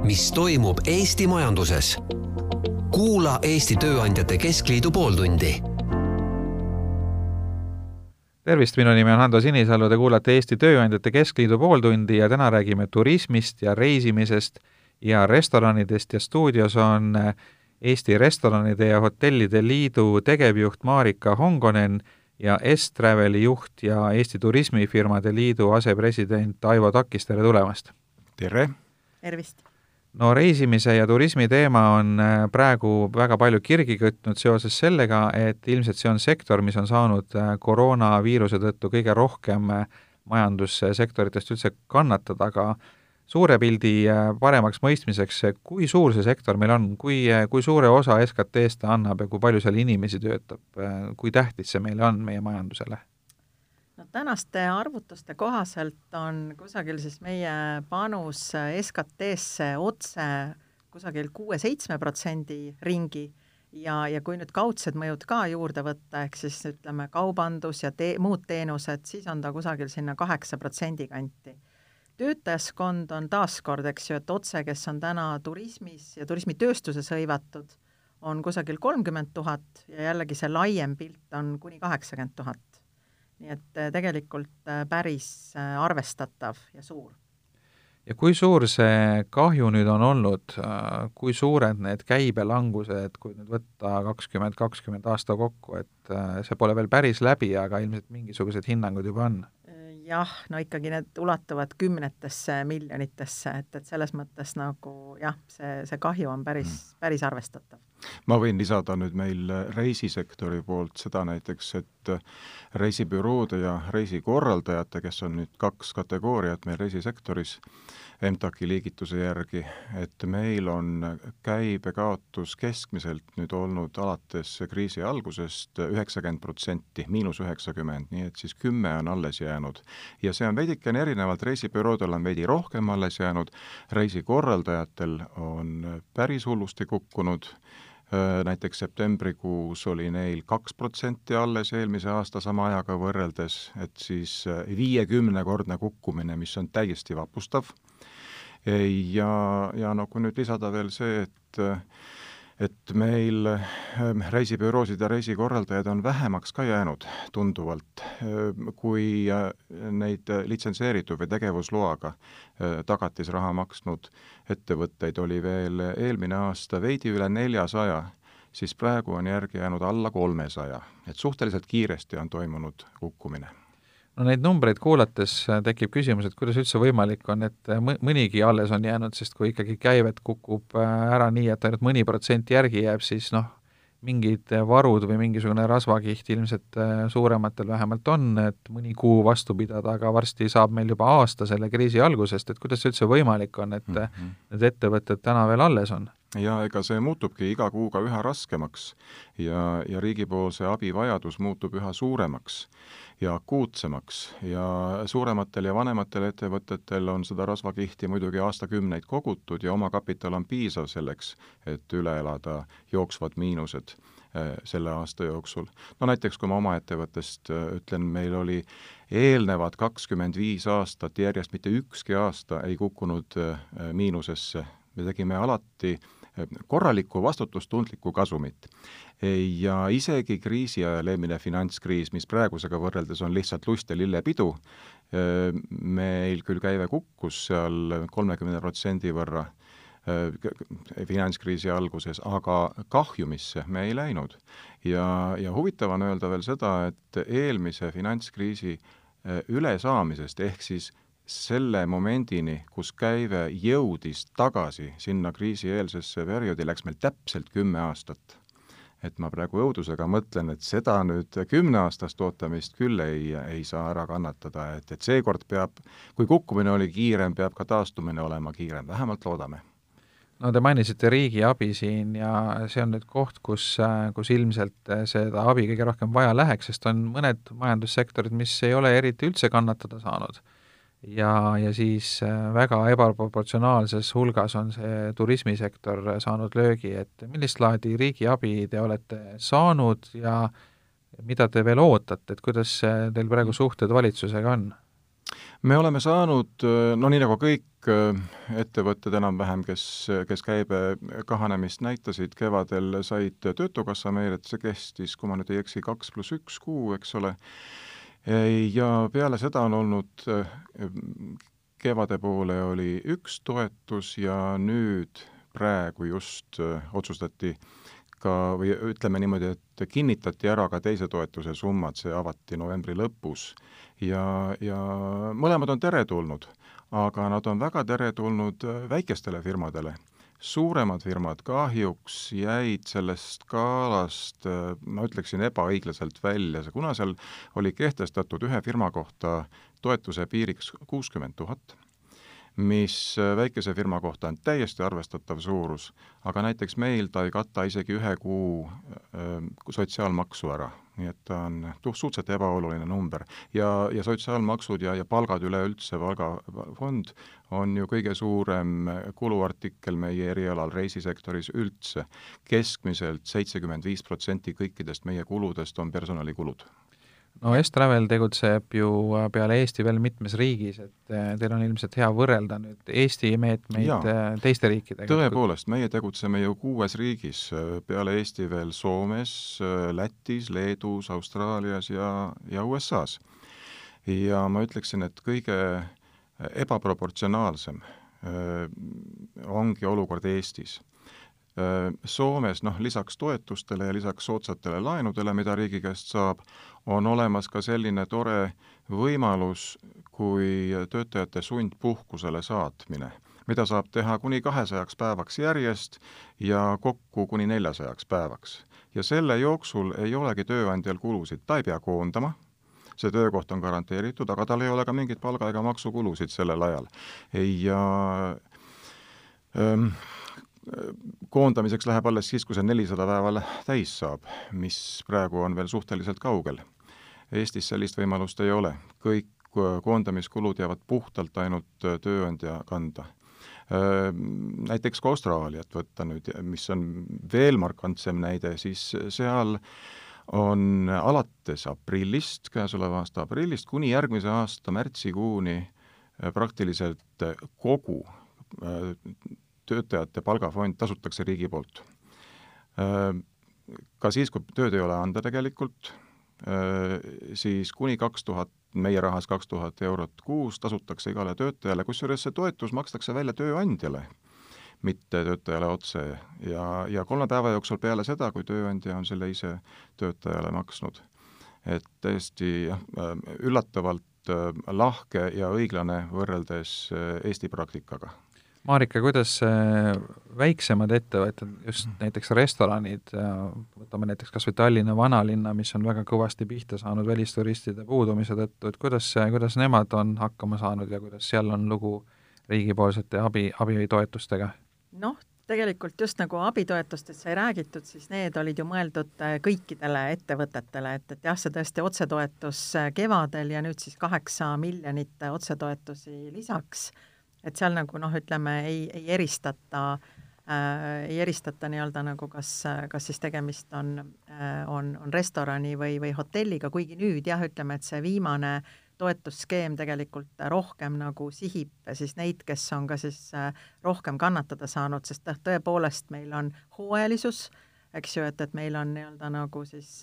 mis toimub Eesti majanduses. Kuula Eesti Tööandjate Keskliidu pooltundi. Tervist, minu nimi on Hando Sinisalu, te kuulate Eesti Tööandjate Keskliidu pooltundi ja täna räägime turismist ja reisimisest ja restoranidest ja stuudios on Eesti Restoranide ja Hotellide Liidu tegevjuht Marika Hongonen ja S-Traveli juht ja Eesti Turismifirmade Liidu asepresident Aivo Takis, tere tulemast! Tere! Tervist! No reisimise ja turismi teema on praegu väga palju kirgi kütnud seoses sellega, et ilmselt see on sektor, mis on saanud koroonaviiruse tõttu kõige rohkem majandussektoritest üldse kannatada, aga suure pildi paremaks mõistmiseks, kui suur see sektor meil on, kui suure osa SKT-st ta annab ja kui palju seal inimesi töötab, kui tähtis see meile on meie majandusele? No, tänaste arvutuste kohaselt on kusagil siis meie panus SKT-sse otse kusagil 6-7% ringi ja kui nüüd kaudsed mõjud ka juurde võtta, ehk siis ütleme kaubandus ja muud teenused, siis on ta kusagil sinna 8% kanti. Töötajaskond on taaskord, eks ju, et otse, kes on täna turismis ja turismitööstuses hõivatud, on kusagil 30 000 ja jällegi see laiem pilt on kuni 80 000. Nii et tegelikult päris arvestatav ja suur. Ja kui suur see kahju nüüd on olnud, kui suured need käibelangused, kui nüüd võtta 2020 aasta kokku, et see pole veel päris läbi, aga ilmselt mingisugused hinnangud juba on? Jah, no ikkagi need ulatuvad 10 miljonitesse, et selles mõttes nagu jah, see kahju on päris arvestatav. Ma võin lisada nüüd meil reisisektori poolt seda näiteks, et reisibüroode ja reisikorraldajate, kes on nüüd 2 kategooriat meil reisisektoris, MTAK-i liigituse järgi, et meil on käibekaotus keskmiselt nüüd olnud alates kriisi algusest 90%, -90%, nii et siis 10 on alles jäänud. Ja see on veidikene erinevalt, reisibüroodel on veidi rohkem alles jäänud, reisikorraldajatel on päris hullusti kukkunud, näiteks septembrikuus oli neil 2% alles eelmise aasta sama ajaga võrreldes, et siis 50-kordne kukkumine, mis on täiesti vapustav. Ja no kui nüüd lisada veel see, et meil reisibüroosid ja reisikorraldajaid on vähemaks ka jäänud tunduvalt, kui neid litsenseeritud või tegevusloaga tagatisraha maksnud ettevõtteid oli veel eelmine aasta veidi üle 400, siis praegu on järgi jäänud alla 300, et suhteliselt kiiresti on toimunud kukkumine. No neid numbreid kuulates tekib küsimus, et kuidas üldse võimalik on, et mõnigi alles on jäänud, sest kui ikkagi käivet kukub ära nii, et ainult mõni protsent järgi jääb, siis mingid varud või mingisugune rasvakiht ilmselt suurematel vähemalt on, et mõni kuu vastu pidada, aga varsti saab meil juba aasta selle kriisi algusest, et kuidas üldse võimalik on, et need ettevõtted täna veel alles on? Ja ega see muutubki iga kuuga üha raskemaks ja riigipoolse abivajadus muutub üha suuremaks ja akuutsemaks ja suurematel ja vanematel ettevõtetel on seda rasvakihti muidugi aastakümneid kogutud ja oma kapital on piisav selleks, et üle elada jooksvad miinused selle aasta jooksul. No näiteks, kui ma oma ettevõttest ütlen, meil oli eelnevad 25 aastat järjest mitte ükski aasta ei kukkunud miinusesse. Me tegime alati korralikku vastutustundlikku kasumit. Ja isegi kriisi ajal eelmine finantskriis, mis praegusega võrreldes on lihtsalt lust ja lillepidu, meil küll käive kukkus seal 30% võrra finantskriisi alguses, aga kahjumisse me ei läinud. Ja huvitav on öelda veel seda, et eelmise finantskriisi ülesaamisest ehk siis selle momendini, kus käive jõudis tagasi sinna kriisieelsesse perioodi, läks meil täpselt 10 aastat. Et ma praegu õudusega mõtlen, et seda nüüd 10 aastast ootamist küll ei saa ära kannatada, et seekord peab, kui kukkumine oli kiirem, peab ka taastumine olema kiirem, vähemalt loodame. No te mainisite riigi abi siin ja see on nüüd koht, kus ilmselt seda abi kõige rohkem vaja läheks, sest on mõned majandussektorid, mis ei ole eriti üldse kannatada saanud. Ja siis väga ebaproportsionaalses hulgas on see turismisektor saanud löögi, et millist laadi riigi abi te olete saanud ja mida te veel ootate, et kuidas teil praegu suhted valitsusega on? Me oleme saanud, no nii nagu kõik ettevõtted enam-vähem, kes käibe kahanemist näitasid, kevadel said Töötukassa meile, et see kestis, kui ma nüüd ei eksi, 2+1 kuu, eks ole, ja peale seda on olnud, kevade poole oli üks toetus ja nüüd praegu just otsustati või ütleme niimoodi, et kinnitati ära ka teise toetuse summad, see avati novembri lõpus ja mõlemad on teretulnud, aga nad on väga teretulnud väikestele firmadele. Suuremad firmad kahjuks jäid sellest skaalast, ma ütleksin, ebaõiglaselt välja, kuna seal oli kehtestatud ühe firma kohta toetuse piiriks 60 000, mis väikese firma kohta on täiesti arvestatav suurus, aga näiteks meil ta ei kata isegi 1 kuu sotsiaalmaksu ära, nii et ta on suhteliselt ebaoluline number. Ja sotsiaalmaksud ja palgad üleüldse, palgafond on ju kõige suurem kuluartikkel meie erialal reisisektoris üldse. Keskmiselt 75% kõikidest meie kuludest on personalikulud. No S-Travel tegutseb ju peale Eesti veel mitmes riigis, et teil on ilmselt hea võrrelda nüüd Eesti meetmeid teiste riikidega. Tõepoolest, meie tegutseme ju 6 riigis, peale Eesti veel Soomes, Lätis, Leedus, Austraalias ja USAs. Ja ma ütleksin, et kõige ebaproportsionaalsem ongi olukord Eestis. Soomes, lisaks toetustele ja lisaks soodsatele laenudele, mida riigi käest saab, on olemas ka selline tore võimalus kui töötajate sundpuhkusele saatmine, mida saab teha kuni 200 päevaks järjest ja kokku kuni 400 päevaks. Ja selle jooksul ei olegi tööandjal kulusid, ta ei pea koondama, see töökoht on garanteeritud, aga tal ei ole ka mingit palga ega maksukulusid sellel ajal. Ja koondamiseks läheb alles siis, kui see 400 päeval täis saab, mis praegu on veel suhteliselt kaugel. Eestis sellist võimalust ei ole. Kõik koondamiskulud jäävad puhtalt ainult tööandja kanda. Näiteks ka Austraaliat võtta nüüd, mis on veel markantsem näide, siis seal on alates aprillist, käesoleva aasta aprillist, kuni järgmise aasta märtsikuuni praktiliselt kogu töötajate palgafond tasutakse riigi poolt. Ka siis, kui tööd ei ole anda tegelikult, siis kuni 2000, meie rahas 2000 eurot kuus tasutakse igale töötajale, kusjuures see toetus makstakse välja tööandjale, mitte töötajale otse. Ja 3 päeva jooksul peale seda, kui tööandja on selle ise töötajale maksnud. Et tõesti üllatavalt lahke ja õiglane võrreldes Eesti praktikaga. Marika, kuidas väiksemad ettevõtted, just näiteks restoranid, võtame näiteks kas või Tallinna vanalinna, mis on väga kõvasti pihta saanud välisturistide puudumise tõttu, et kuidas nemad on hakkama saanud ja kuidas seal on lugu riigipoolsete abitoetustega? Tegelikult just nagu abitoetustest sai räägitud, siis need olid ju mõeldud kõikidele ettevõtetele, et jah, see tõesti otsetoetus kevadel ja nüüd siis 8 miljonit otsetoetusi lisaks. Et seal nagu ütleme, ei eristata nii-öelda nagu kas siis tegemist on restorani või hotelliga, kuigi nüüd jah, ütleme, et see viimane toetusskeem tegelikult rohkem nagu sihib siis neid, kes on ka siis rohkem kannatada saanud, sest tõepoolest meil on hooajalisus, eks ju, et meil on nii-öelda nagu siis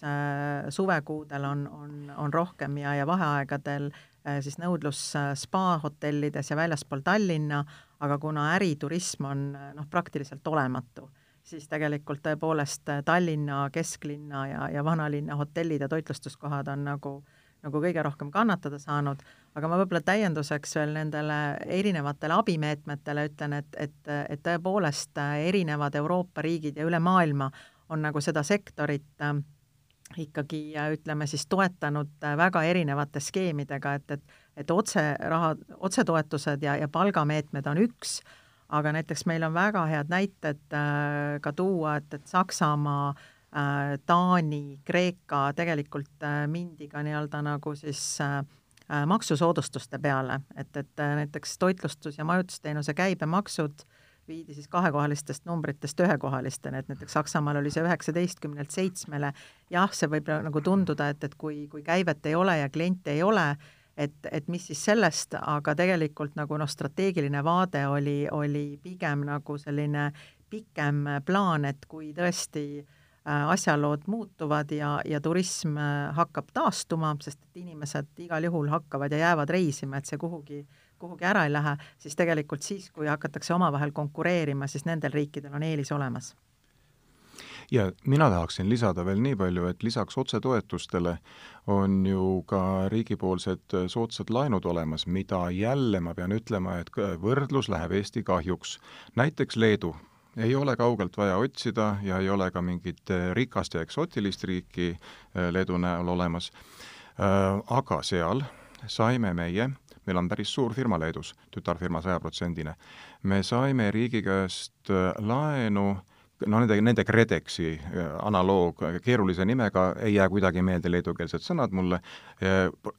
suvekuudel on rohkem ja vaheaegadel siis nõudlus spa-hotellides ja väljaspool Tallinna, aga kuna äriturism on praktiliselt olematu, siis tegelikult tõepoolest Tallinna, kesklinna ja vanalinna hotellid ja toitlustuskohad on nagu kõige rohkem kannatada saanud, aga ma võib-olla täienduseks veel nendele erinevatele abimeetmetele ütlen, et tõepoolest erinevad Euroopa riigid ja üle maailma on nagu seda sektorit ikkagi, ütleme siis, toetanud väga erinevate skeemidega, et otsetoetused ja palgameetmed on üks, aga näiteks meil on väga head näited ka tuua, et Saksamaa, Taani, Kreeka tegelikult mindi ka nii-öelda nagu siis maksusoodustuste peale, et näiteks toitlustus- ja majutusteenuse käibemaksud viidi siis 2-kohalistest numbritest 1-kohalistena, et näiteks Saksamaal oli see 19-lt 7-le. Jah, see võib nagu tunduda, et kui käivet ei ole ja kliente ei ole, et mis siis sellest, aga tegelikult nagu strateegiline vaade oli pigem nagu selline pikem plaan, et kui tõesti asjalood muutuvad ja turism hakkab taastuma, sest et inimesed igal juhul hakkavad ja jäävad reisima, et see kuhugi ära ei lähe, siis tegelikult siis, kui hakatakse omavahel konkureerima, siis nendel riikidel on eelis olemas. Ja mina tahaksin lisada veel nii palju, et lisaks otsetoetustele on ju ka riigipoolsed soodsad laenud olemas, mida jälle ma pean ütlema, et võrdlus läheb Eesti kahjuks. Näiteks Leedu. Ei ole kaugelt vaja otsida ja ei ole ka mingit rikast ja eksootilist riiki Leedu näol olemas. Aga seal saime meil on päris suur firma Leedus, tütarfirma 100%. Me saime riigi käest laenu, nende KredExi analoog keerulise nimega, ei jää kuidagi meelde leedukeelsed sõnad mulle,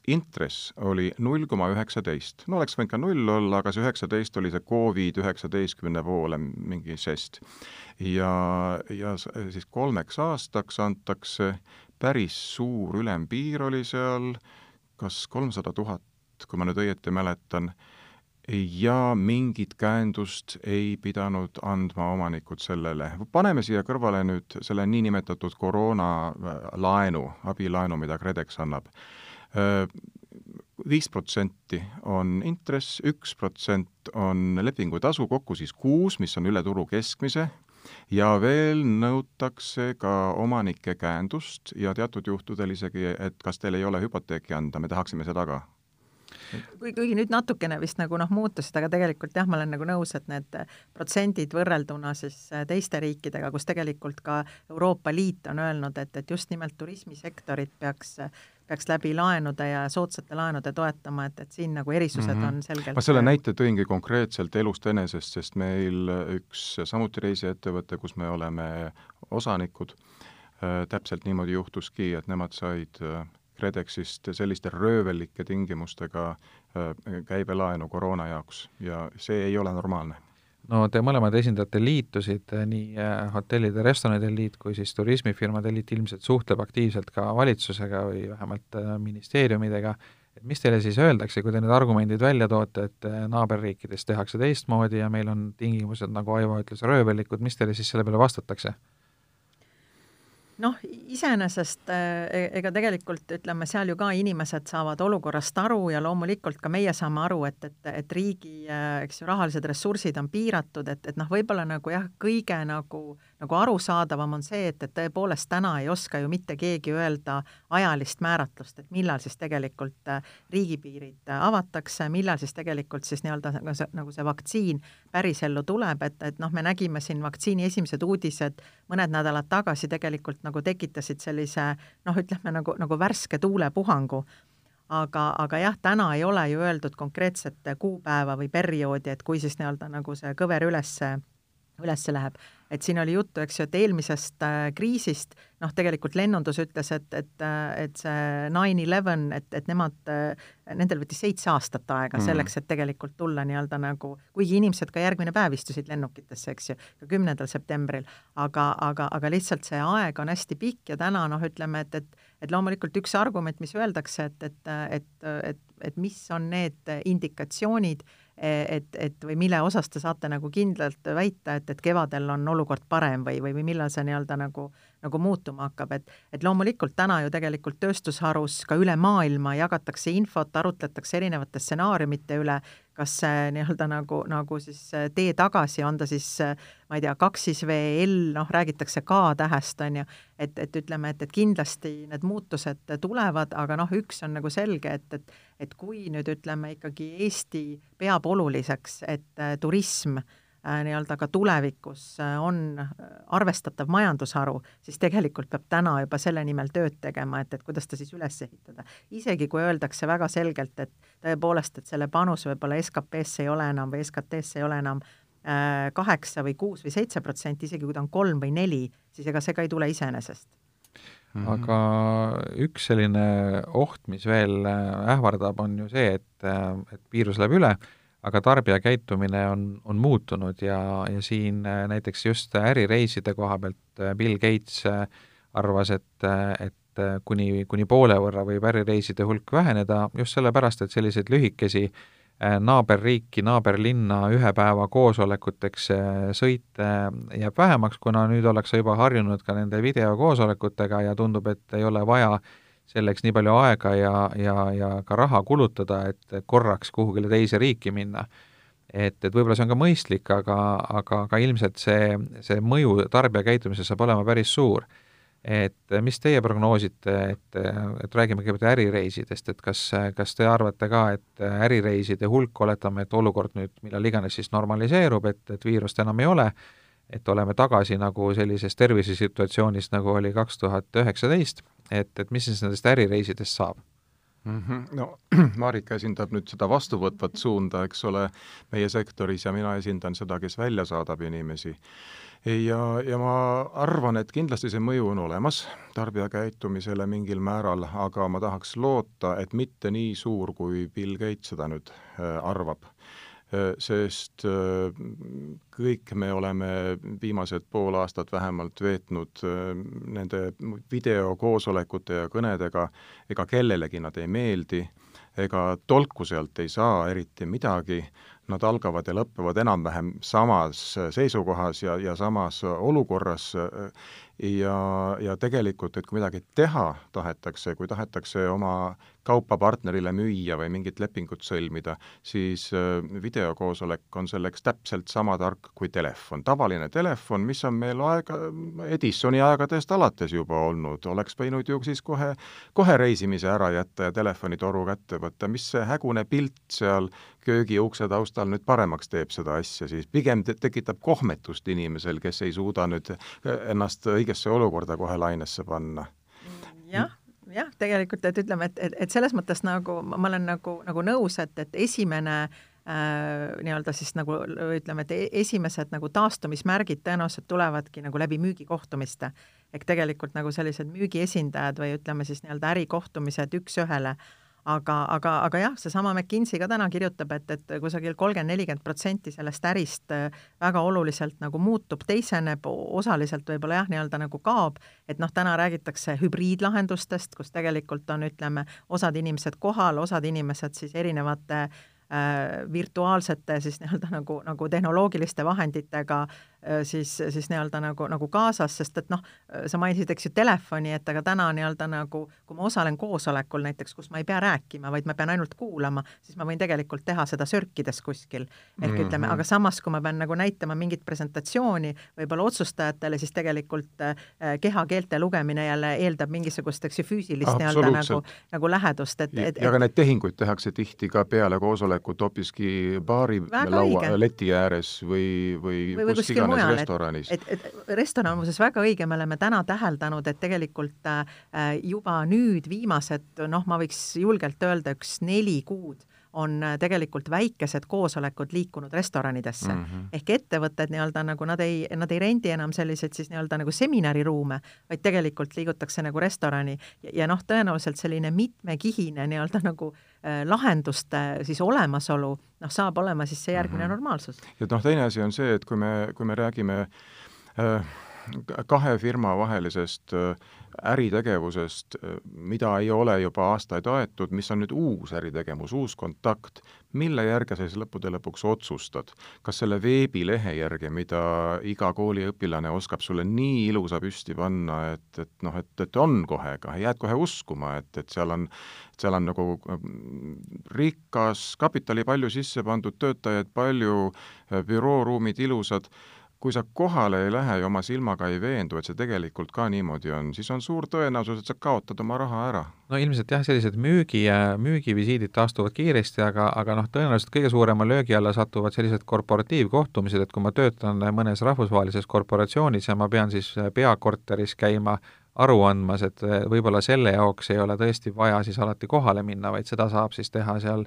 intress oli 0,19. No oleks võinud ka 0 olla, aga see 19 oli see COVID-19 poole mingi žest. Ja siis 3 aastaks antakse päris suur ülempiir oli seal, kas 300 000, kui ma nüüd õieti mäletan, ja mingit käendust ei pidanud andma omanikud sellele. Paneme siia kõrvale nüüd selle niinimetatud koroonalaenu, abilaenu, mida KredEx annab. 5% on intress, 1% on lepingutasu, kokku siis 6, mis on üle turu keskmise, ja veel nõutakse ka omanike käendust ja teatud juhtudel isegi, et kas teil ei ole hüpoteeki anda, me tahaksime seda ka. Kuigi nüüd natukene vist nagu muutusid, aga tegelikult jah, ma olen nagu nõus, et need protsendid võrrelduna siis teiste riikidega, kus tegelikult ka Euroopa Liit on öelnud, et just nimelt turismisektorit peaks läbi laenude ja soodsate laenude toetama, et siin nagu erisused on selgelt. Ma selle näite tõingi konkreetselt elust enesest, sest meil üks samuti reisiettevõte, kus me oleme osanikud, täpselt niimoodi juhtuski, et nemad said KredExist selliste röövellike tingimustega käibelaenu koroona jaoks ja see ei ole normaalne. No te mõlemad esindate liitusid, nii hotellide ja restoranide liit kui siis turismifirmade liit ilmselt suhtleb aktiivselt ka valitsusega või vähemalt ministeeriumidega. Et mis teile siis öeldakse, kui te need argumendid välja toote, et naaberriikides tehakse teistmoodi ja meil on tingimused, nagu Aivo ütles, röövellikud, mis teile siis selle peale vastatakse? Noh, iseenesest ega tegelikult ütleme, seal ju ka inimesed saavad olukorrast aru ja loomulikult ka meie saame aru, et riigi rahalised ressursid on piiratud, et võib-olla nagu jah, kõige nagu arusaadavam on see, et tõepoolest täna ei oska ju mitte keegi öelda ajalist määratlust, et millal siis tegelikult riigipiirid avatakse, millal siis tegelikult siis nagu see vaktsiin pärisellu tuleb, et me nägime siin vaktsiini esimesed uudised mõned nädalad tagasi tegelikult nagu tekitasid sellise, ütleme nagu värske tuulepuhangu. Aga jah, täna ei ole ju öeldud konkreetset kuupäeva või perioodi, et kui siis nagu see kõver ülesse läheb. Et siin oli juttu, eks ju, et eelmisest kriisist, tegelikult lennundus ütles, et see 9/11, et nendel võttis 7 aastat aega selleks, et tegelikult tulla nagu, kuigi inimesed ka järgmine päev istusid lennukitesse, eks ju, ka 10. septembril, aga lihtsalt see aeg on hästi pikk ja täna, ütleme, et loomulikult üks argument, mis öeldakse, et mis on need indikatsioonid, et või mille osas te saate nagu kindlalt väita, et kevadel on olukord parem või millal see nagu muutuma hakkab, et loomulikult täna ju tegelikult tööstusharus ka üle maailma jagatakse infot, arutletakse erinevate stsenaariumite üle, kas see nagu siis tee tagasi, on ta siis, ma ei tea, 2VL, räägitakse K-tähest, on ju, et ütleme, et kindlasti need muutused tulevad, aga üks on nagu selge, et kui nüüd ütleme ikkagi Eesti peab oluliseks, et turism ka tulevikus on arvestatav majandusharu, siis tegelikult peab täna juba selle nimel tööd tegema, et kuidas ta siis üles ehitada. Isegi kui öeldakse väga selgelt, et tõepoolest, et selle panus võib-olla SKP-sse ei ole enam või SKT-sse ei ole enam 8 või 6 või 7%, isegi kui ta on 3 või 4, siis ega see ka ei tule iseenesest. Aga üks selline oht, mis veel ähvardab, on ju see, et viirus läheb üle, aga tarbija käitumine on muutunud ja siin näiteks just ärireiside koha pealt Bill Gates arvas, et et kuni poole võrra võib ärireiside hulk väheneda just sellepärast, et selliseid lühikesi naaberriiki, naaberlinna ühe päeva koosolekuteks sõite jääb vähemaks, kuna nüüd ollakse juba harjunud ka nende videokoosolekutega ja tundub, et ei ole vaja selleks nii palju aega ja ka raha kulutada, et korraks kuhugile teise riiki minna. Et võib-olla see on ka mõistlik, aga ilmselt see mõju tarbija käitumises saab olema päris suur. Et mis teie prognoosite, et räägime kõigepealt ärireisidest, et kas te arvate ka, et ärireiside hulk, oletame, et olukord nüüd millal iganes siis normaliseerub, et viirust enam ei ole, et oleme tagasi nagu sellises tervisesituatsioonis, nagu oli 2019, et mis siis nendest ärireisidest saab? No Marika esindab nüüd seda vastuvõtvat suunda, eks ole, meie sektoris ja mina esindan seda, kes välja saadab inimesi. Ja ma arvan, et kindlasti see mõju on olemas tarbija käitumisele mingil määral, aga ma tahaks loota, et mitte nii suur, kui Bill Gates seda nüüd arvab. Sest kõik me oleme viimased pool aastat vähemalt veetnud nende videokoosolekute ja kõnedega, ega kellelegi nad ei meeldi, ega tolku sealt ei saa eriti midagi, nad algavad ja lõppevad enam-vähem samas seisukohas ja samas olukorras ja tegelikult, et kui midagi teha tahetakse, kui tahetakse oma kaupa partnerile müüa või mingit lepingut sõlmida, siis videokoosolek on selleks täpselt sama tark kui telefon. Tavaline telefon, mis on meil Edisoni aegadest alates juba olnud, oleks võinud ju siis kohe reisimise ära jätta ja telefonitoru kätte võtta, mis see hägune pilt seal köögi ukse taustal nüüd paremaks teeb seda asja, siis pigem tekitab kohmetust inimesel, kes ei suuda nüüd ennast õigesse olukorda kohe lainesse panna. Jah, tegelikult, et ütleme, et selles mõttes nagu ma olen nagu nõus, et esimene nii-öelda siis nagu ütleme, et esimesed nagu taastumismärgid tõenäoliselt tulevadki nagu läbi müügikohtumiste. Ehk tegelikult nagu sellised müügiesindajad või ütleme siis nii-öelda ärikohtumised üks ühele. Aga jah, seesama McKinsey ka täna kirjutab, et kusagil 30-40% sellest ärist väga oluliselt nagu muutub, teiseneb, osaliselt võib-olla jah, nii-öelda nagu kaob, et täna räägitakse hübriidlahendustest, kus tegelikult on, ütleme, osad inimesed kohal, osad inimesed siis erinevate virtuaalsete siis nii-öelda nagu tehnoloogiliste vahenditega siis nii-öelda nagu kaasas, sest et sa mainisid, eks ju, telefoni, et aga täna nii-öelda nagu, kui ma osalen koosolekul näiteks, kus ma ei pea rääkima, vaid ma pean ainult kuulama, siis ma võin tegelikult teha seda sörkides kuskil. Ehk ütleme, aga samas, kui ma pean nagu näitama mingit presentatsiooni võib-olla otsustajatele, siis tegelikult kehakeelte lugemine jälle eeldab mingisugust, eks ju, füüsilist nii-öelda nagu lähedust. Ja ka need tehinguid tehakse tihti ka peale koosolekut hoopiski baari laua leti ääres või kus iganes restoranis. Et restoran muuses väga õige, me oleme täna täheldanud, et tegelikult juba nüüd viimased, ma võiks julgelt öelda 4 kuud on tegelikult väikesed koosolekud liikunud restoranidesse. Ehk ettevõtted nii-öelda nagu nad ei rendi enam selliseid siis nii-öelda nagu seminariruume, vaid tegelikult liigutakse nagu restorani ja tõenäoliselt selline mitmekihine nii-öelda nagu lahenduste siis olemasolu saab olema siis see järgmine normaalsus. Ja teine asi on see, et kui me räägime kahe firma vahelisest äritegevusest, mida ei ole juba aastaid aetud, mis on nüüd uus äritegevus, uus kontakt, mille järgi sa siis lõppude lõpuks otsustad? Kas selle veebilehe järgi, mida iga kooliõpilane oskab sulle nii ilusa püsti panna, et on kohe, jääd kohe uskuma, et seal on nagu rikas kapitali palju sisse pandud, töötajaid palju, bürooruumid ilusad. Kui sa kohale ei lähe ja oma silmaga ei veendu, et see tegelikult ka niimoodi on, siis on suur tõenäosus, et sa kaotad oma raha ära. No ilmselt jah, sellised müügivisiidid taastuvad kiiresti, aga tõenäoliselt kõige suurema löögi alla satuvad sellised korporatiivkohtumised, et kui ma töötan mõnes rahvusvahelises korporatsioonis ja ma pean siis peakorteris käima aru andmas, et võib-olla selle jaoks ei ole tõesti vaja siis alati kohale minna, vaid seda saab siis teha seal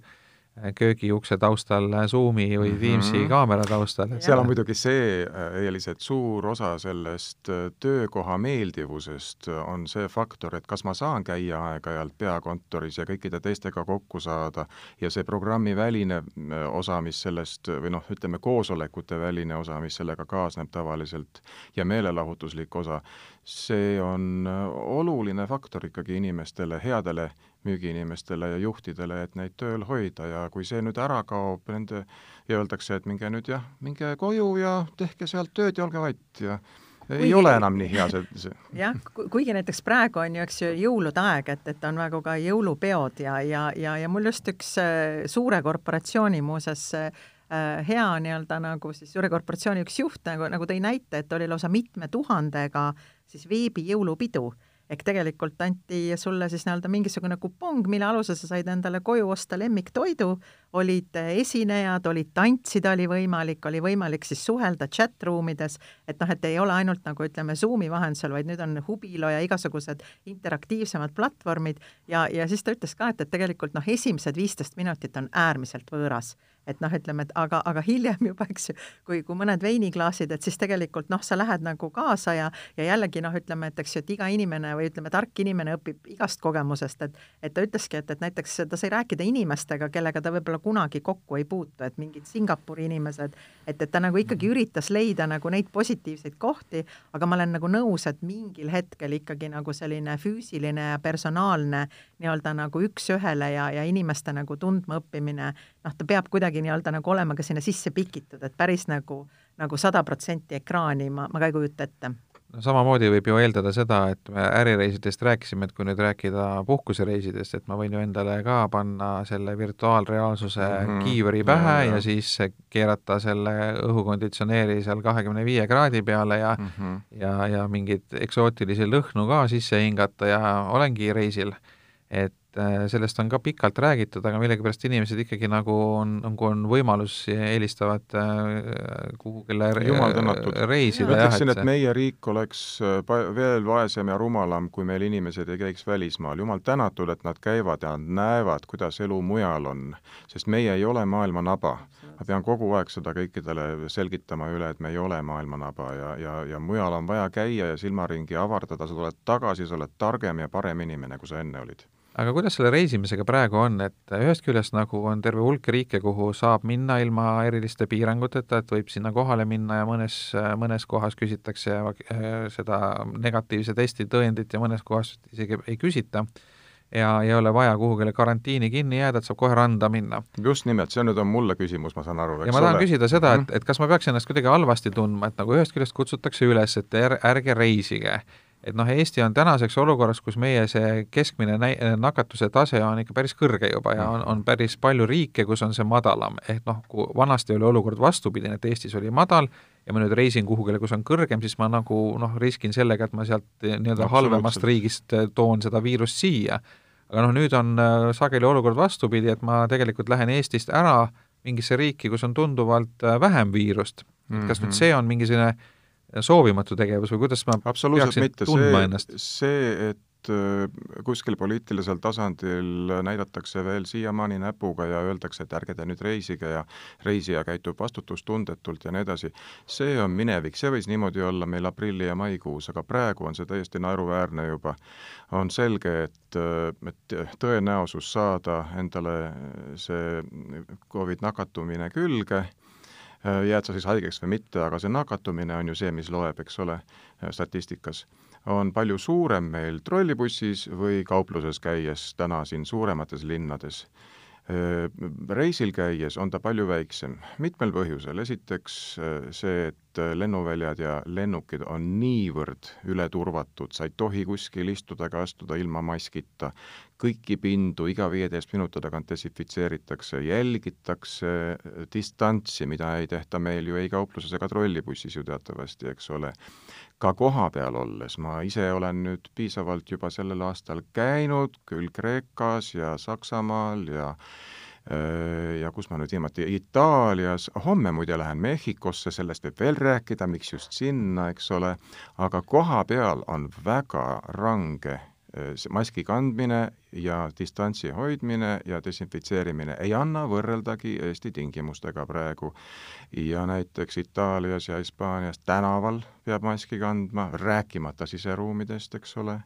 köögiukse taustal Zoomi või Teamsi kaamera taustal. Seal on muidugi see, Eelis, et suur osa sellest töökoha meeldivusest on see faktor, et kas ma saan käia aeg-ajalt peakontoris ja kõikide teistega kokku saada ja see programmi väline osa, mis sellest, või noh, ütleme koosolekute väline osa, mis sellega kaasneb tavaliselt ja meelelahutuslik osa, see on oluline faktor ikkagi inimestele, headele müügiinimestele ja juhtidele, et neid tööl hoida ja kui see nüüd ära kaob nende ja öeldakse, et minge koju ja tehke sealt tööd ja olge vait ja ei ole enam nii hea see. Jah, kuigi näiteks praegu on ju, eks ju, jõulude aeg, et on väga ka jõulupeod ja mul just üks suure korporatsiooni muuses hea nii-öelda nagu siis suure korporatsiooni üks juht nagu tõi näite, et oli lausa 7000 siis veebi jõulupidu. Ehk tegelikult anti sulle siis nii-öelda mingisugune kupong, mille aluses sa said endale koju osta lemmiktoidu, olid esinejad, olid tantsida, oli võimalik siis suhelda chat-ruumides, et noh, et ei ole ainult nagu ütleme Zoomi vahendusel, vaid nüüd on Hubilo ja igasugused interaktiivsemad platvormid ja siis ta ütles ka, et tegelikult noh, esimesed 15 minutit on äärmiselt võõras. Et noh, ütleme, et aga hiljem juba, eks ju, kui mõned veiniklaasid, et siis tegelikult noh, sa lähed nagu kaasa ja jällegi noh, ütleme, et eks ju, et iga inimene või ütleme, tark inimene õpib igast kogemusest, et ta ütleski, et näiteks ta sai rääkida inimestega, kellega ta võib-olla kunagi kokku ei puutu, et mingid Singapuri inimesed, et ta nagu ikkagi üritas leida nagu neid positiivseid kohti, aga ma olen nagu nõus, et mingil hetkel ikkagi nagu selline füüsiline ja personaalne nii-öelda nagu üks ühele ja inimeste nagu tundma õppimine, noh, ta peab kuidagi nii-öelda nagu olema ka sinna sisse pikitud, et päris nagu 100% ekraani ma ka ei kujuta ette. No, samamoodi võib ju eeldada seda, et me ärireisidest rääkisime, et kui nüüd rääkida puhkusereisidest, et ma võin ju endale ka panna selle virtuaalreaalsuse kiivri pähe ja siis keerata selle õhukonditsioneeri seal 25 kraadi peale ja mingid eksootilisi lõhnu ka sisse hingata ja olengi reisil. Et sellest on ka pikalt räägitud, aga millegipärast inimesed ikkagi nagu on võimalus eelistavad kuhugile reisida. Ütleksin, et meie riik oleks veel vaesem ja rumalam, kui meil inimesed ei käiks välismaal. Jumal tänatud, et nad käivad ja nad näevad, kuidas elu mujal on, sest meie ei ole maailma naba. Ma pean kogu aeg seda kõikidele selgitama üle, et me ei ole maailma naba ja mujal on vaja käia ja silmaringi avardada, sa tuled tagasi, sa oled targem ja parem inimene, kui sa enne olid. Aga kuidas selle reisimisega praegu on, et ühest küljest nagu on terve hulk riike, kuhu saab minna ilma eriliste piiranguteta, et võib sinna kohale minna ja mõnes kohas küsitakse seda negatiivse testi tõendit ja mõnes kohas isegi ei küsita ja ei ole vaja kuhugile karantiini kinni jääda, et saab kohe randa minna. Just nimelt, see nüüd on mulle küsimus, ma saan aru. Ja ma tahan küsida seda, et kas ma peaks ennast kuidagi halvasti tundma, et nagu ühest küljest kutsutakse üles, et ärge reisige. Et noh, Eesti on tänaseks olukorras, kus meie see keskmine nakatuse tase on ikka päris kõrge juba ja on päris palju riike, kus on see madalam. Ehk noh, kui vanasti oli olukord vastupidine, et Eestis oli madal ja ma nüüd reisin kuhugile, kus on kõrgem, siis ma nagu riskin sellega, et ma sealt nii-öelda halvemast riigist toon seda viirust siia. Aga noh, nüüd on sageli olukord vastupidi, et ma tegelikult lähen Eestist ära mingisse riiki, kus on tunduvalt vähem viirust. Kas nüüd see on mingisugune soovimatu tegevus või kuidas ma peaksin tundma ennast? See, et kuskil poliitilisel tasandil näidatakse veel siiamaani näpuga ja öeldakse, et ärge te nüüd reisige ja reisija käitub vastutustundetult ja nii edasi. See on minevik, see võis niimoodi olla meil aprilli ja maikuus, aga praegu on see täiesti naeruväärne juba. On selge, et tõenäosus saada endale see COVID nakatumine külge, jääd sa siis haigeks või mitte, aga see nakatumine on ju see, mis loeb, eks ole, statistikas. On palju suurem meil trollibussis või kaupluses käies täna siin suuremates linnades. Reisil käies on ta palju väiksem. Mitmel põhjusel. Esiteks see, et lennuväljad ja lennukid on niivõrd ületurvatud, sa ei tohi kuskil istuda ega astuda ilma maskita. Kõiki pindu iga 15 minuti tagant desinfitseeritakse, jälgitakse distantsi, mida ei tehta meil ju ei kaupluses ega trollibussis ju teatavasti, eks ole. Ka koha peal olles, ma ise olen nüüd piisavalt juba sellel aastal käinud, küll Kreekas ja Saksamaal ja kus ma nüüd viimati Itaalias, homme muide lähen Mehhikosse, sellest võib veel rääkida, miks just sinna, eks ole, aga koha peal on väga range maski kandmine ja distantsi hoidmine ja desinfitseerimine ei anna võrreldagi Eesti tingimustega praegu. Ja näiteks Itaalias ja Hispaanias tänaval peab maski kandma, rääkimata siseruumidest, eks ole.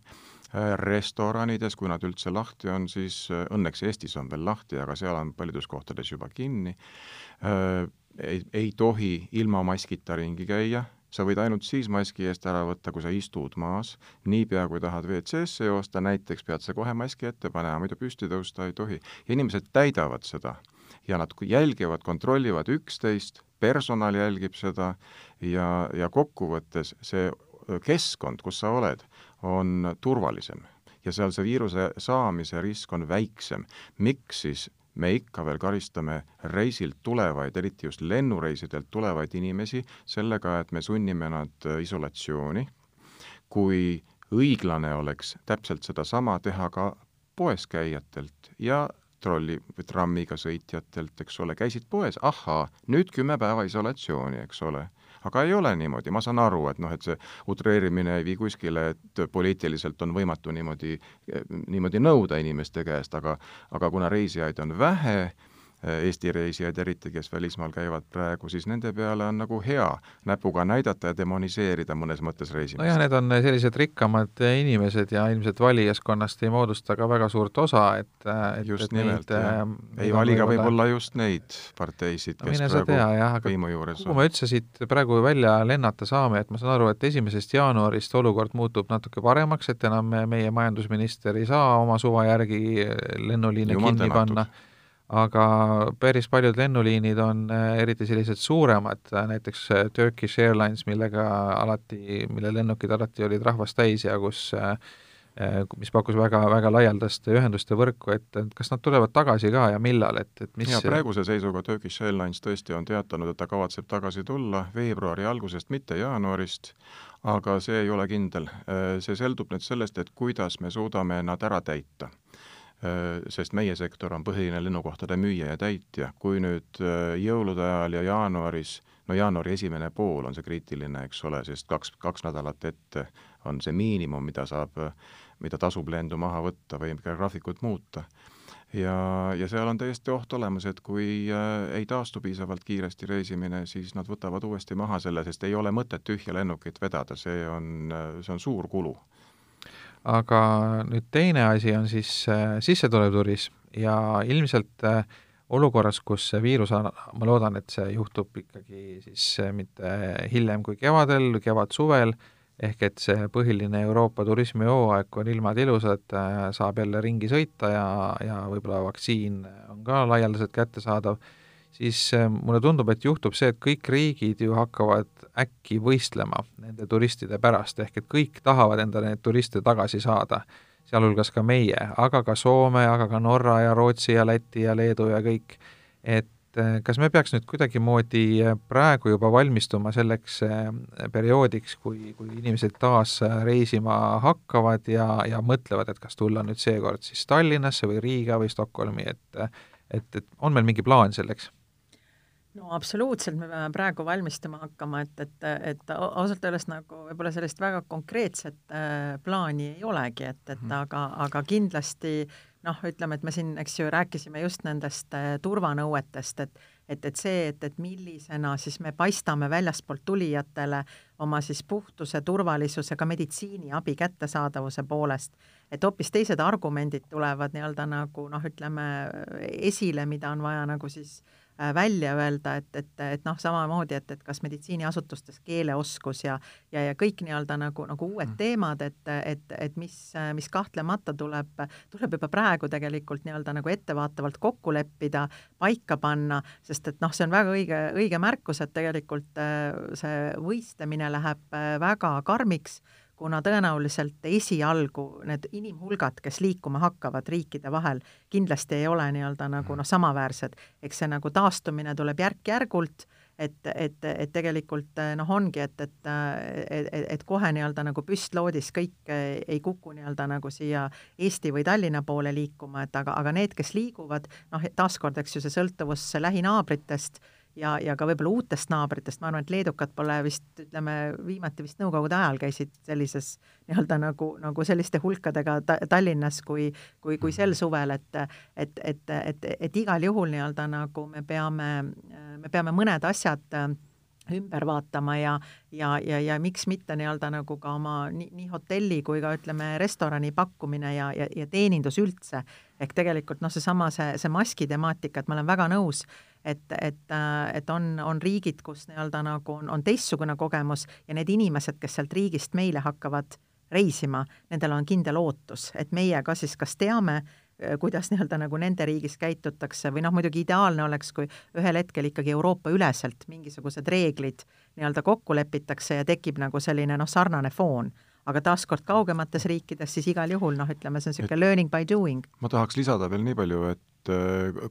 Restoranides, kui nad üldse lahti on, siis õnneks Eestis on veel lahti, aga seal on paljudes kohtades juba kinni. Ei tohi ilma maskita ringi käia. Sa võid ainult siis maski eest ära võtta, kui sa istud maas. Niipea, kui tahad WC-sse joosta, näiteks pead sa kohe maski ette panema, muidu püsti tõusta ei tohi. Ja inimesed täidavad seda ja nad jälgivad, kontrollivad üksteist, personal jälgib seda ja kokkuvõttes see keskkond, kus sa oled, on turvalisem ja seal see viiruse saamise risk on väiksem. Miks siis me ikka veel karistame reisilt tulevaid, eriti just lennureisidelt tulevaid inimesi sellega, et me sunnime nad isolatsiooni, kui õiglane oleks täpselt seda sama teha ka poes käijatelt ja trammiga sõitjatelt, eks ole, käisid poes, ahaa, nüüd 10 päeva isolatsiooni, eks ole. Aga ei ole niimoodi, ma saan aru, et et see utreerimine ei vii kuskile, et poliitiliselt on võimatu niimoodi nõuda inimeste käest, aga kuna reisijaid on vähe, Eesti reisijaid eriti, kes välismaal käivad praegu, siis nende peale on nagu hea näpuga näidata ja demoniseerida mõnes mõttes reisimist. No jah, need on sellised rikkamad inimesed ja ilmselt valijaskonnast ei moodusta ka väga suurt osa, et just nimelt, ei valiga võib-olla just neid parteisid, kes praegu võimu juures on. Kuhu me üldse siit praegu välja lennata saame, et ma saan aru, et 1. jaanuarist olukord muutub natuke paremaks, et enam meie majandusminister ei saa oma suva järgi lennuliine kinni panna. Aga päris paljud lennuliinid on eriti sellised suuremad, näiteks Turkish Airlines, mille lennukid alati olid rahvast täis ja mis pakkus väga laialdast ühenduste võrku, et kas nad tulevad tagasi ka ja millal, et mis... Ja praeguse seisuga Turkish Airlines tõesti on teatanud, et ta kavatseb tagasi tulla veebruari algusest, mitte jaanuarist, aga see ei ole kindel. See seldub nüüd sellest, et kuidas me suudame nad ära täita. Sest meie sektor on põhiline lennukohtade müüja ja täitja. Kui nüüd jõulude ajal ja jaanuaris, jaanuari esimene pool on see kriitiline, eks ole, sest kaks nädalat ette on see miinimum, mida tasub lendu maha võtta või graafikut muuta. Ja seal on täiesti oht olemas, et kui ei taastu piisavalt kiiresti reisimine, siis nad võtavad uuesti maha selle, sest ei ole mõtet tühja lennukit vedada, see on suur kulu. Aga nüüd teine asi on siis sissetulev turism ja ilmselt olukorras, kus see viirus, ma loodan, et see juhtub ikkagi siis mitte hiljem kui kevadel, kevad-suvel, ehk et see põhiline Euroopa turismihooaeg, kui on ilmad ilusad, saab jälle ringi sõita ja võib-olla vaktsiin on ka laialdaselt kättesaadav, siis mulle tundub, et juhtub see, et kõik riigid ju hakkavad äkki võistlema nende turistide pärast, ehk et kõik tahavad enda need turiste tagasi saada, sealhulgas ka meie, aga ka Soome, aga ka Norra ja Rootsi ja Läti ja Leedu ja kõik. Et kas me peaks nüüd kuidagimoodi praegu juba valmistuma selleks perioodiks, kui inimesed taas reisima hakkavad ja mõtlevad, et kas tulla nüüd seekord siis Tallinnasse või Riiga või Stockholmi, et on meil mingi plaan selleks? No absoluutselt, me peame praegu valmistama hakkama, et ausalt öeldes nagu võib-olla sellist väga konkreetset plaani ei olegi, aga kindlasti ütleme, et me siin, eks ju, rääkisime just nendest turvanõuetest, et see, et millisena siis me paistame väljaspoolt tulijatele oma siis puhtuse, turvalisuse, ka meditsiiniabi kättesaadavuse poolest, et hoopis teised argumendid tulevad nii-öelda nagu ütleme esile, mida on vaja nagu siis välja öelda, et samamoodi, et kas meditsiiniasutustes keeleoskus ja kõik nii-öelda nagu uued teemad, et mis kahtlemata tuleb juba praegu tegelikult nii-öelda nagu ettevaatavalt kokku leppida, paika panna, sest et see on väga õige märkus, et tegelikult see võistlemine läheb väga karmiks, kuna tõenäoliselt esialgu need inimhulgad, kes liikuma hakkavad riikide vahel, kindlasti ei ole nii-öelda nagu samaväärsed. Eks see nagu taastumine tuleb järk-järgult, et tegelikult ongi, et kohe nii-öelda nagu püstloodis kõik ei kuku nii-öelda nagu siia Eesti või Tallinna poole liikuma, aga need, kes liiguvad, taaskord, eks ju, see sõltuvus lähinaabritest ja ka võib-olla uutest naabritest, ma arvan, et leedukad pole vist, ütleme, viimati vist nõukogude ajal käisid sellises nii-öelda nagu selliste hulkadega Tallinnas kui sel suvel, et igal juhul nii-öelda nagu me peame mõned asjad ümber vaatama ja miks mitte nii-öelda nagu ka oma nii hotelli kui ka ütleme restorani pakkumine ja teenindus üldse. Ehk tegelikult seesama see maski temaatika, et ma olen väga nõus, et on riigid, kus nii-öelda nagu on teistsugune kogemus ja need inimesed, kes sealt riigist meile hakkavad reisima, nendel on kindel ootus, et meie ka siis kas teame, kuidas nii-öelda nagu nende riigis käitutakse või muidugi ideaalne oleks, kui ühel hetkel ikkagi Euroopa üleselt mingisugused reeglid nii-öelda kokku lepitakse ja tekib nagu selline sarnane foon. Aga taaskord kaugemates riikides siis igal juhul, ütleme, see on selline learning by doing. Ma tahaks lisada veel nii palju, et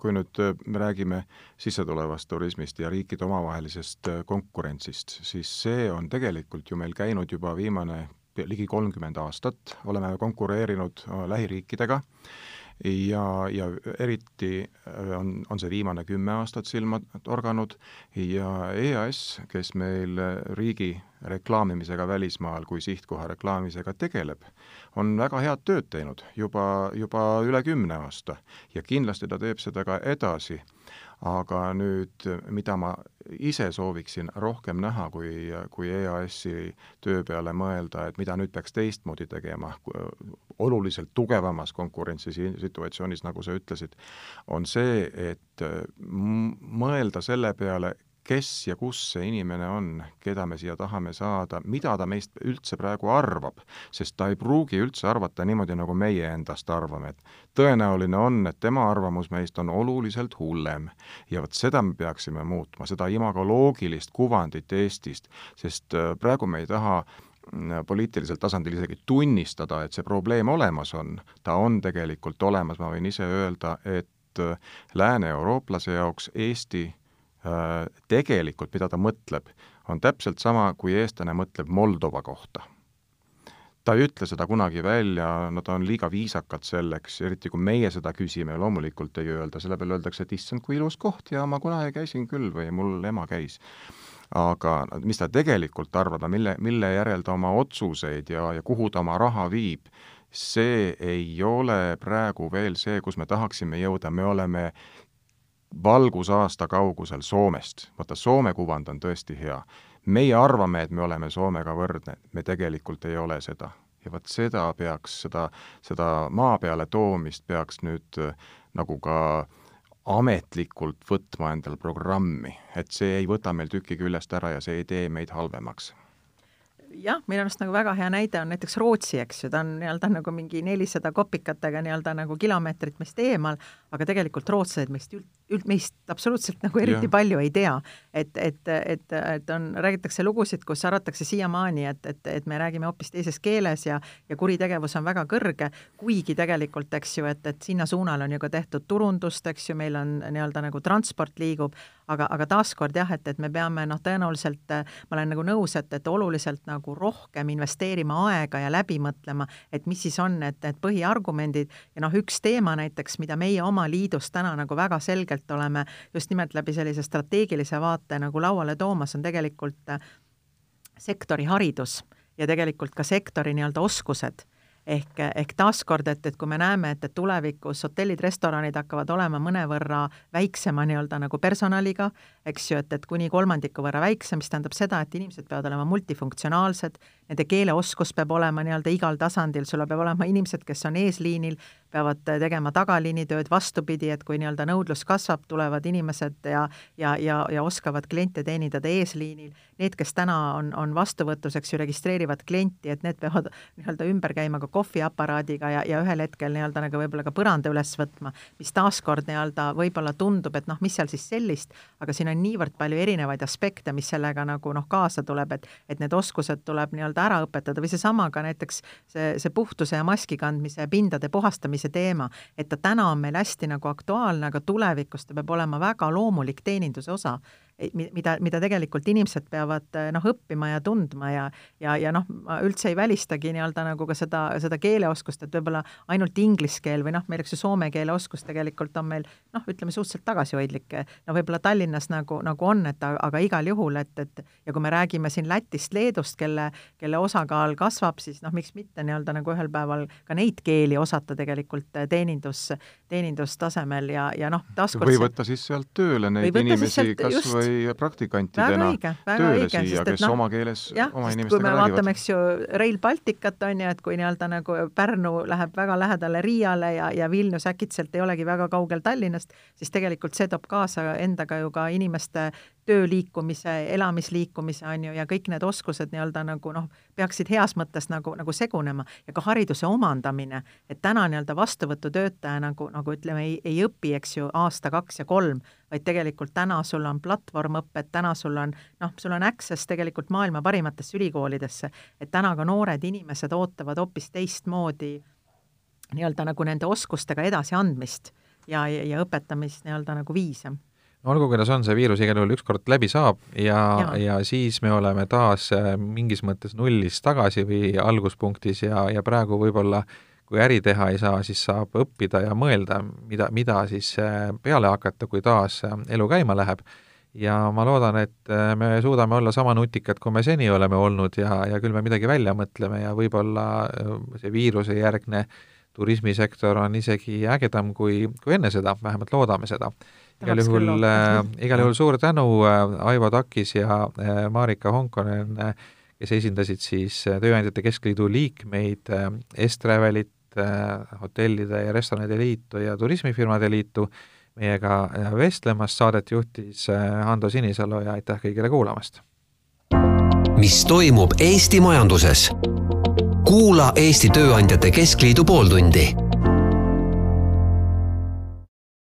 kui nüüd me räägime sissetulevast turismist ja riikide omavahelisest konkurentsist, siis see on tegelikult ju meil käinud juba viimane ligi 30 aastat, oleme konkureerinud lähiriikidega ja eriti on see viimane 10 aastat silma torganud ja EAS, kes meil riigi reklaamimisega välismaal kui sihtkoha reklaamimisega tegeleb, on väga head tööd teinud juba üle 10 aasta ja kindlasti ta teeb seda ka edasi. Aga nüüd, mida ma ise sooviksin rohkem näha, kui EAS-i töö peale mõelda, et mida nüüd peaks teistmoodi tegema, oluliselt tugevamas konkurentsisituatsioonis, nagu sa ütlesid, on see, et mõelda selle peale, kes ja kus see inimene on, keda me siia tahame saada, mida ta meist üldse praegu arvab, sest ta ei pruugi üldse arvata niimoodi, nagu meie endast arvame. Et tõenäoline on, et tema arvamus meist on oluliselt hullem ja võt seda me peaksime muutma, seda imagoloogilist kuvandit Eestist, sest praegu me ei taha poliitilisel tasandil isegi tunnistada, et see probleem olemas on. Ta on tegelikult olemas, ma võin ise öelda, et lääne-eurooplase jaoks Eesti tegelikult, mida ta mõtleb, on täpselt sama, kui eestlane mõtleb Moldova kohta. Ta ei ütle seda kunagi välja, ta on liiga viisakad selleks, eriti kui meie seda küsime, loomulikult ei öelda, selle peale öeldakse, et issand, kui ilus koht ja ma kunagi käisin küll või mul ema käis. Aga mis ta tegelikult arvab, mille järel ta oma otsuseid ja kuhu ta oma raha viib, see ei ole praegu veel see, kus me tahaksime jõuda, me oleme valgusaasta kaugusel Soomest. Vaata, Soome kuvand on tõesti hea. Meie arvame, et me oleme Soomega võrdne. Me tegelikult ei ole seda. Ja vaat seda peaks, seda maa peale toomist peaks nüüd nagu ka ametlikult võtma endal programmi. Et see ei võta meil tüki küljest ära ja see ei tee meid halvemaks. Jah, meil on nagu väga hea näide on näiteks Rootsi, eks ju, ta on nii-öelda nagu mingi 400 kopikatega nii-öelda nagu kilomeetrit meist eemal, aga tegelikult rootslased meist absoluutselt nagu eriti palju ei tea. Et räägitakse lugusid, kus arvatakse siiamaani, et me räägime hoopis teises keeles ja kuritegevus on väga kõrge, kuigi tegelikult, eks ju, et sinna suunal on ju ka tehtud turundust, eks ju, meil on nii-öelda nagu transport liigub, aga taaskord jah, et me peame tõenäoliselt, ma olen nagu nõus, et oluliselt nagu rohkem investeerima aega ja läbi mõtlema, et mis siis on need põhiargumendid ja üks teema näiteks, mida meie oma liidus täna nagu väga selgelt oleme just nimelt läbi sellise strateegilise vaate nagu lauale toomas, on tegelikult sektori haridus ja tegelikult ka sektori nii-öelda oskused. Ehk taaskord, et kui me näeme, et tulevikus hotellid, restoranid hakkavad olema mõnevõrra väiksema nii-öelda nagu personaliga, eks ju, et kuni 3% võrra väiksem, mis tähendab seda, et inimesed peavad olema multifunktsionaalsed, nende keeleoskus peab olema nii-öelda igal tasandil, sul peab olema inimesed, kes on eesliinil, peavad tegema tagaliinitööd vastupidi, et kui nii-öelda nõudlus kasvab, tulevad inimesed ja oskavad kliente teenindada eesliinil. Need, kes täna on vastuvõtuseks ju registreerivad klienti, et need peavad nii-öelda ümber käima ka kohviaparaadiga ja ühel hetkel nii-öelda nagu võib-olla ka põranda üles võtma, mis taaskord nii-öelda võib-olla tundub, et mis seal siis sellist, aga siin on niivõrd palju erinevaid aspekte, mis sellega nagu kaasa tuleb, et need oskused tuleb nii-öelda ära õpetada või seesama ka näiteks see puhtuse ja maski kandmise pindade puhastamise teema, et ta täna on meil hästi nagu aktuaalne, aga tulevikus ta peab olema väga loomulik teeninduse osa. mida tegelikult inimesed peavad õppima ja tundma ja ma üldse ei välistagi nii-öelda nagu ka seda keeleoskust, et võib-olla ainult inglise keel või meil üks soome keele oskus tegelikult on meil ütleme suhteliselt tagasihoidlik. Võib-olla Tallinnas nagu on, aga igal juhul, et ja kui me räägime siin Lätist, Leedust, kelle osakaal kasvab, siis miks mitte nii-öelda nagu ühel päeval ka neid keeli osata tegelikult teenindustasemel ja taaskord või võtta siis sealt tööle neid inimesi kas või praktikantidena tööle siia, kes oma keeles oma inimestega räägivad. Kui me vaatame, eks ju, Rail Balticat on ju, et kui nii-öelda nagu Pärnu läheb väga lähedale Riiale ja Vilnius äkitselt ei olegi väga kaugel Tallinnast, siis tegelikult see toob kaasa endaga ju ka inimeste tööliikumise, elamisliikumise on ju ja kõik need oskused nii-öelda nagu peaksid heas mõttes nagu segunema ja ka hariduse omandamine, et täna nii-öelda vastuvõtutöötaja nagu ütleme, ei õpi, eks ju, aasta, 2 ja 3, vaid tegelikult täna sul on platvormõpped, täna sul on access tegelikult maailma parimatesse ülikoolidesse, et täna ka noored inimesed ootavad hoopis teistmoodi nii-öelda nagu nende oskustega edasi andmist ja õpetamist nii-öelda nagu viise. Olgu, kuidas on, see viirus igal juhul ükskord läbi saab ja siis me oleme taas mingis mõttes nullis tagasi või alguspunktis ja praegu võib-olla kui äri teha ei saa, siis saab õppida ja mõelda, mida siis peale hakata, kui taas elu käima läheb. Ja ma loodan, et me suudame olla sama nutikad, kui me seni oleme olnud ja küll me midagi välja mõtleme ja võib-olla see viiruse järgne turismisektor on isegi ägedam kui enne seda, vähemalt loodame seda. Igal juhul suur tänu Aivo Takis ja Marika Honkonen, kes esindasid siis Tööandjate Keskliidu liikmeid, Estravelit, hotellide ja restoranide liitu ja turismifirmade liitu. Meiega vestlemast saadet juhtis Hando Sinisalu ja aitäh kõigile kuulamast. Mis toimub Eesti majanduses? Kuula Eesti Tööandjate Keskliidu pooltundi.